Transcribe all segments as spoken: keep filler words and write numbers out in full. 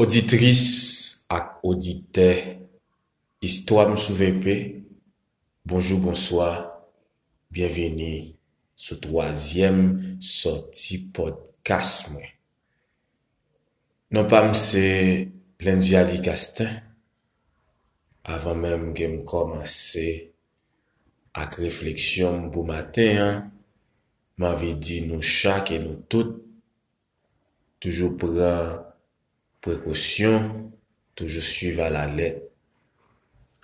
Oditris ak oditè Istwa m sou V P, bonjou, bonswa, byenvini sou twazyèm sòti pòdkas mwen. Non pa m se Lendiali Castin. Avan menm ke m kòmanse ak refleksyon m pou maten an, m anvi di nou chak e nou tout, toujou pran prekosyon, toujou swiv alalèt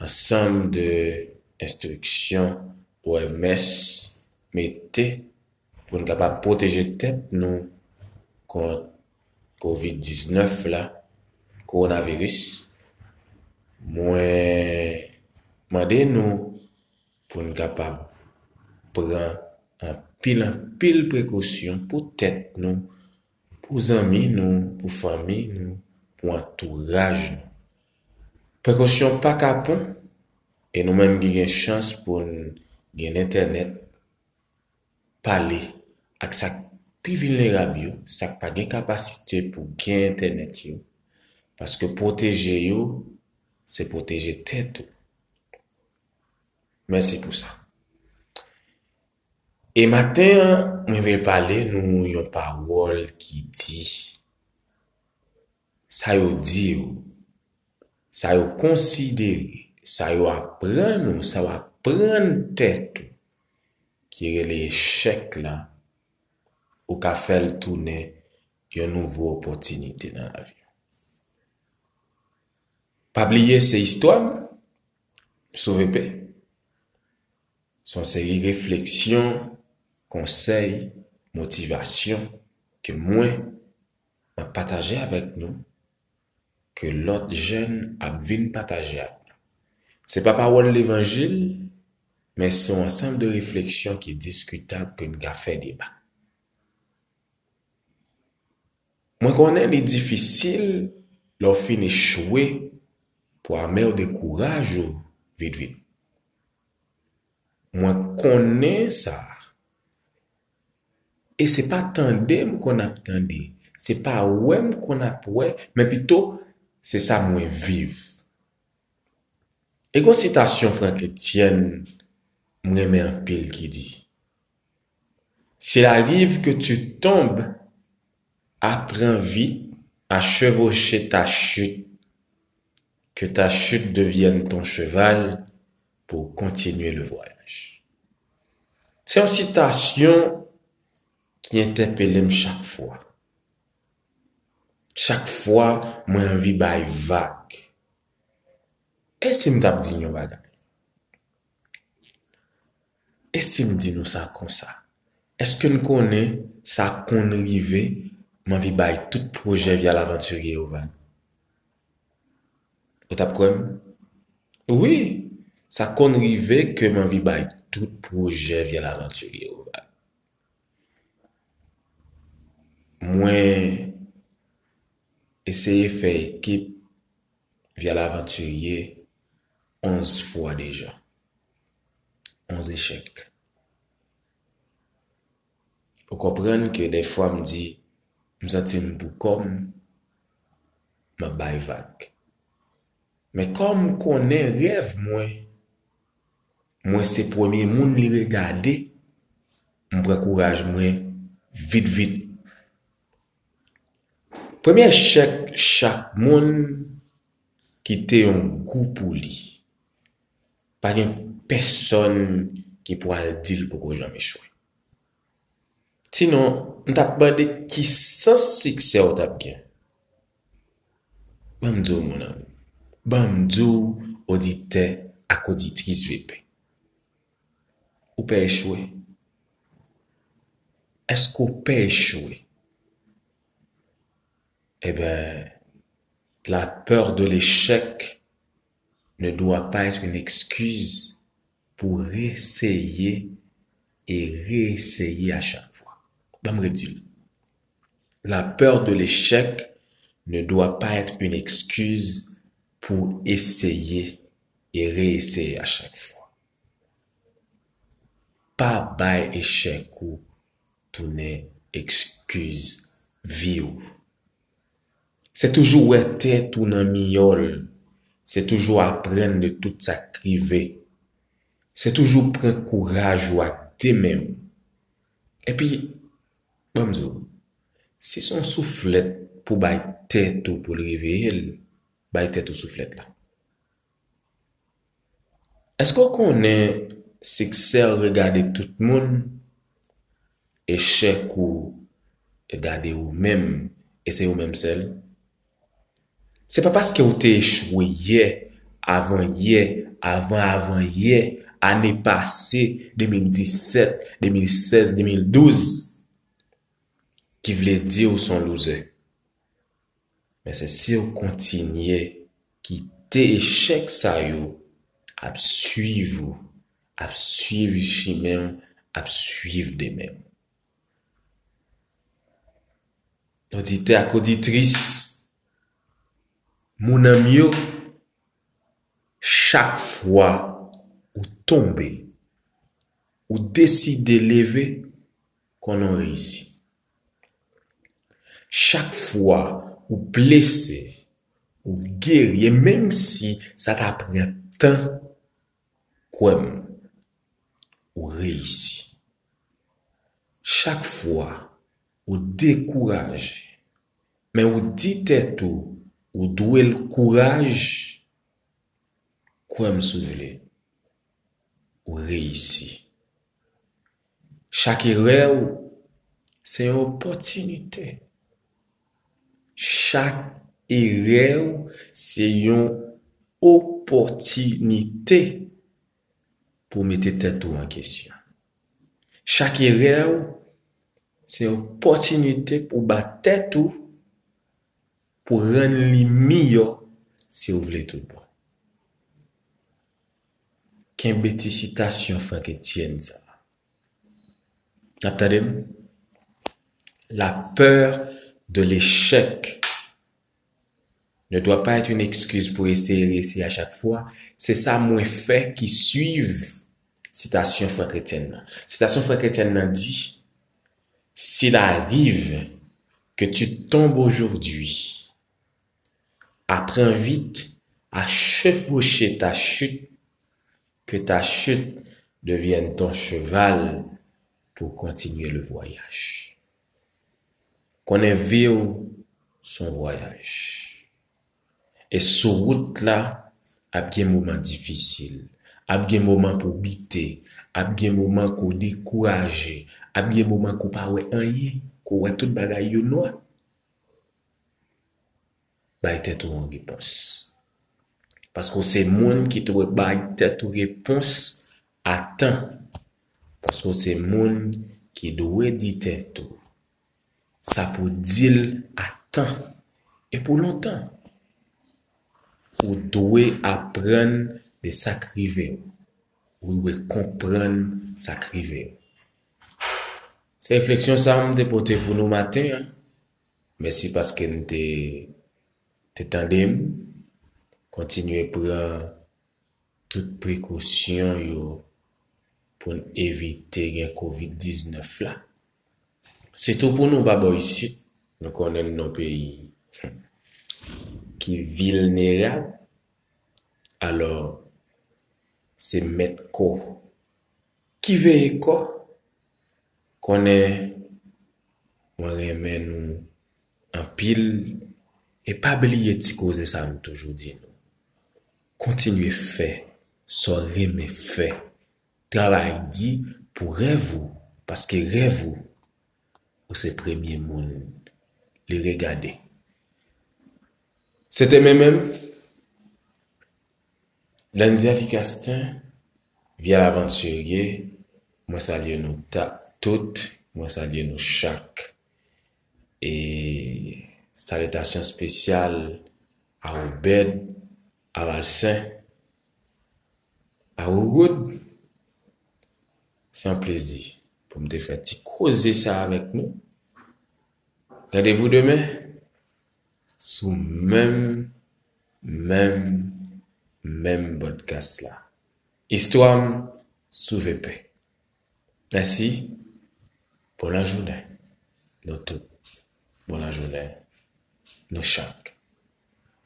ansanm de enstriksyon O M S mete pou n kapab pwoteje tèt nou kont kovid diznèf la, kowonaviris. Mwen mande nou pou n kapab pran anpil, anpil prekosyon pou tèt nou, pou zanmi nou, pou fanmi nou, pou antouraj nou. Prekosyon pa kapon, e nou menm ki gen chans pou n gen entènèt, pale ak sa k pi vilnerab yo, sa k pa gen kapasite pou gen entènèt yo, paske pwoteje yo, se pwoteje tèt ou. Mèsi pou sa. E maten an, mwen vle pale nou yon pawòl ki di, sa yo di w, sa yo konsidere, sa yo aprann ou, sa w aprann tèt ou, ki rele echèk la, ou ka fè l tounen yon nouvo opòtinite nan lavi w. Pa bliye se istwa m, sou V P. Se yon seri refleksyon, konsèy, motivasyon ke mwen, m ap pataje avèk nou, ke lòt jèn ap vin pataje ak nou. Se pa pawòl levanjil, men se yon ansanm de refleksyon ki diskitab ke n ka fè deba. Mwen konnen li difisil lè w fin echwe pou ame w dekouraj ou vit vit. Mwen konnen sa. E se pa tande m konn ap tande, se pa wè m konn ap wè, men pito se sa mwen viv. E gon sitasyon Franck Etienne m renmen anpil ki di, s'il arrive que tu tombes, apprends vite à chevaucher ta chute, que ta chute devienne ton cheval pour continuer le voyage. Se yon sitasyon ki entèpele m chak fwa. Chak fwa mwen anvi bay vag. E si m t ap di n yon bagay? E si m di nou sa konsa? Èske n konnen sa konn rive, m anvi bay tout pwojè Via Lavantirye yo vag? Ou t ap kwè m? Wi, sa konn rive ke m anvi bay tout pwojè Via Lavantirye yo vag. Mwen eseye fè ekip Via Lavantirye onz fwa deja. Onz echèk. Ou konprann ke dèfwa m di, m santi m pou kò m, m ap bay vag. Men kòm m konnen rèv mwen, mwen se premye moun li regade, m pran kouraj mwen vit vit. Premye echèk chak moun kite yon gou pou li. Pa gen pèsonn ki pral di l poko janm echwe. Sinon, m t ap mande ki sans siksè w t ap gen. Ban m di w, mon ami. Ban m di w, oditè ak oditris V P. Ou pè echwe? Èske w pè echwe? Eben, la peur de l'échec ne doit pas être une excuse pour réessayer et réessayer à chaque fois. Ban m redi l. La peur de l'échec ne doit pas être une excuse pour essayer et réessayer à chaque fois. Pa bay echèk ou tounen ekskiz vi w. Se toujou wè tèt ou nan miyòl. Se toujou aprann de tout sa k rive. Se toujou pran kouraj ou ak de men w. Epi, ban m di w, si se yon souflèt pou bay tèt ou pou l reveye l, bay tèt ou souflèt la. Èske w konnen siksè w regade tout moun, echèk ou regade ou menm, e se ou menm sèl? Se pa paske w te echwe yè, avan yè, avan avan yè, ane pase, de mil disèt, de mil sèz, de mil douz, ki vle di w se yon loser. Men se si w kontinye kite echèk sa yo ap swiv ou, ap swiv chimen w, ap swiv demen w. Oditè ak oditris, moun an m yo, chak fwa ou tonbe, ou deside leve, konnen w reyisi. Chak fwa ou blese, ou geri, e menm si sa ta pran tan, kwè m, ou reyisi. Chak fwa ou dekouraje, men ou di tèt ou, ou dwe l kouraj, kwè m si w vle, ou reyisi. Chak erè w se yon opòtinite. Chak erè w se yon opòtinite pou mete tèt ou an kesyon. Chak erè w se yon opòtinite pou bat tèt ou, pou rann li miyò si w vle tout bon. Kenbe ti sitasyon Frank Etienne sa a. N ap tande m? La peur de l'échec ne doit pas être une excuse pour essayer, réessayer à chaque fois. Se sa mwen fè ki swiv sitasyon Frank Etienne nan. Sitasyon Frank Etienne nan di, s'il arrive que tu tombes aujourd'hui, apprends vite à chevaucher ta chute, que ta chute devienne ton cheval pour continuer le voyage. Konnen vi w se yon vwayaj. E sou wout la, ap gen moman difisil, ap gen moman pou w bite, ap gen moman ke w dekouraje, ap gen moman ke w pa wè anyen, ke w wè tout bagay yo nwa. Bay tèt ou yon repons. Paske w se moun ki dwe bay tèt ou repons a tan. Paske w se moun ki dwe di tèt ou sa pou w di l a tan e pou lontan. Ou dwe aprann de sa k rive w. Ou dwe konprann sa k rive w. Se refleksyon sa a m te pote pou nou maten an. Mèsi paske n te, te tande m. Kontinye pran tout prekosyon yo pou n evite gen kovid diznèf la. Sitou pou nou pa bò isit, nou konnen n nan peyi ki vilnerab. Alò, se mèt kò ki veye kò. Konnen mwen renmen nou anpil e pa bliye ti koze sa a m toujou di nou. Kontinye fè sa w renmen fè. Travay di pou rèv ou, paske rèv ou, ou se premye moun li regade. Se te mwen menm, Landy Castin, Vyal Avantirye, mwen salye nou ta, tout, mwen salye nou chak. E salitasyon espesyal a Obed, a Valsen, a Rogood. Se yon plezi pou m te fè ti koze sa avèk nou. Randevou demen sou menm, menm, menm podcast la. Istwa m sou V P. Mèsi. Bon lajounen. Nou tout. Bon lajounen. Nou chak.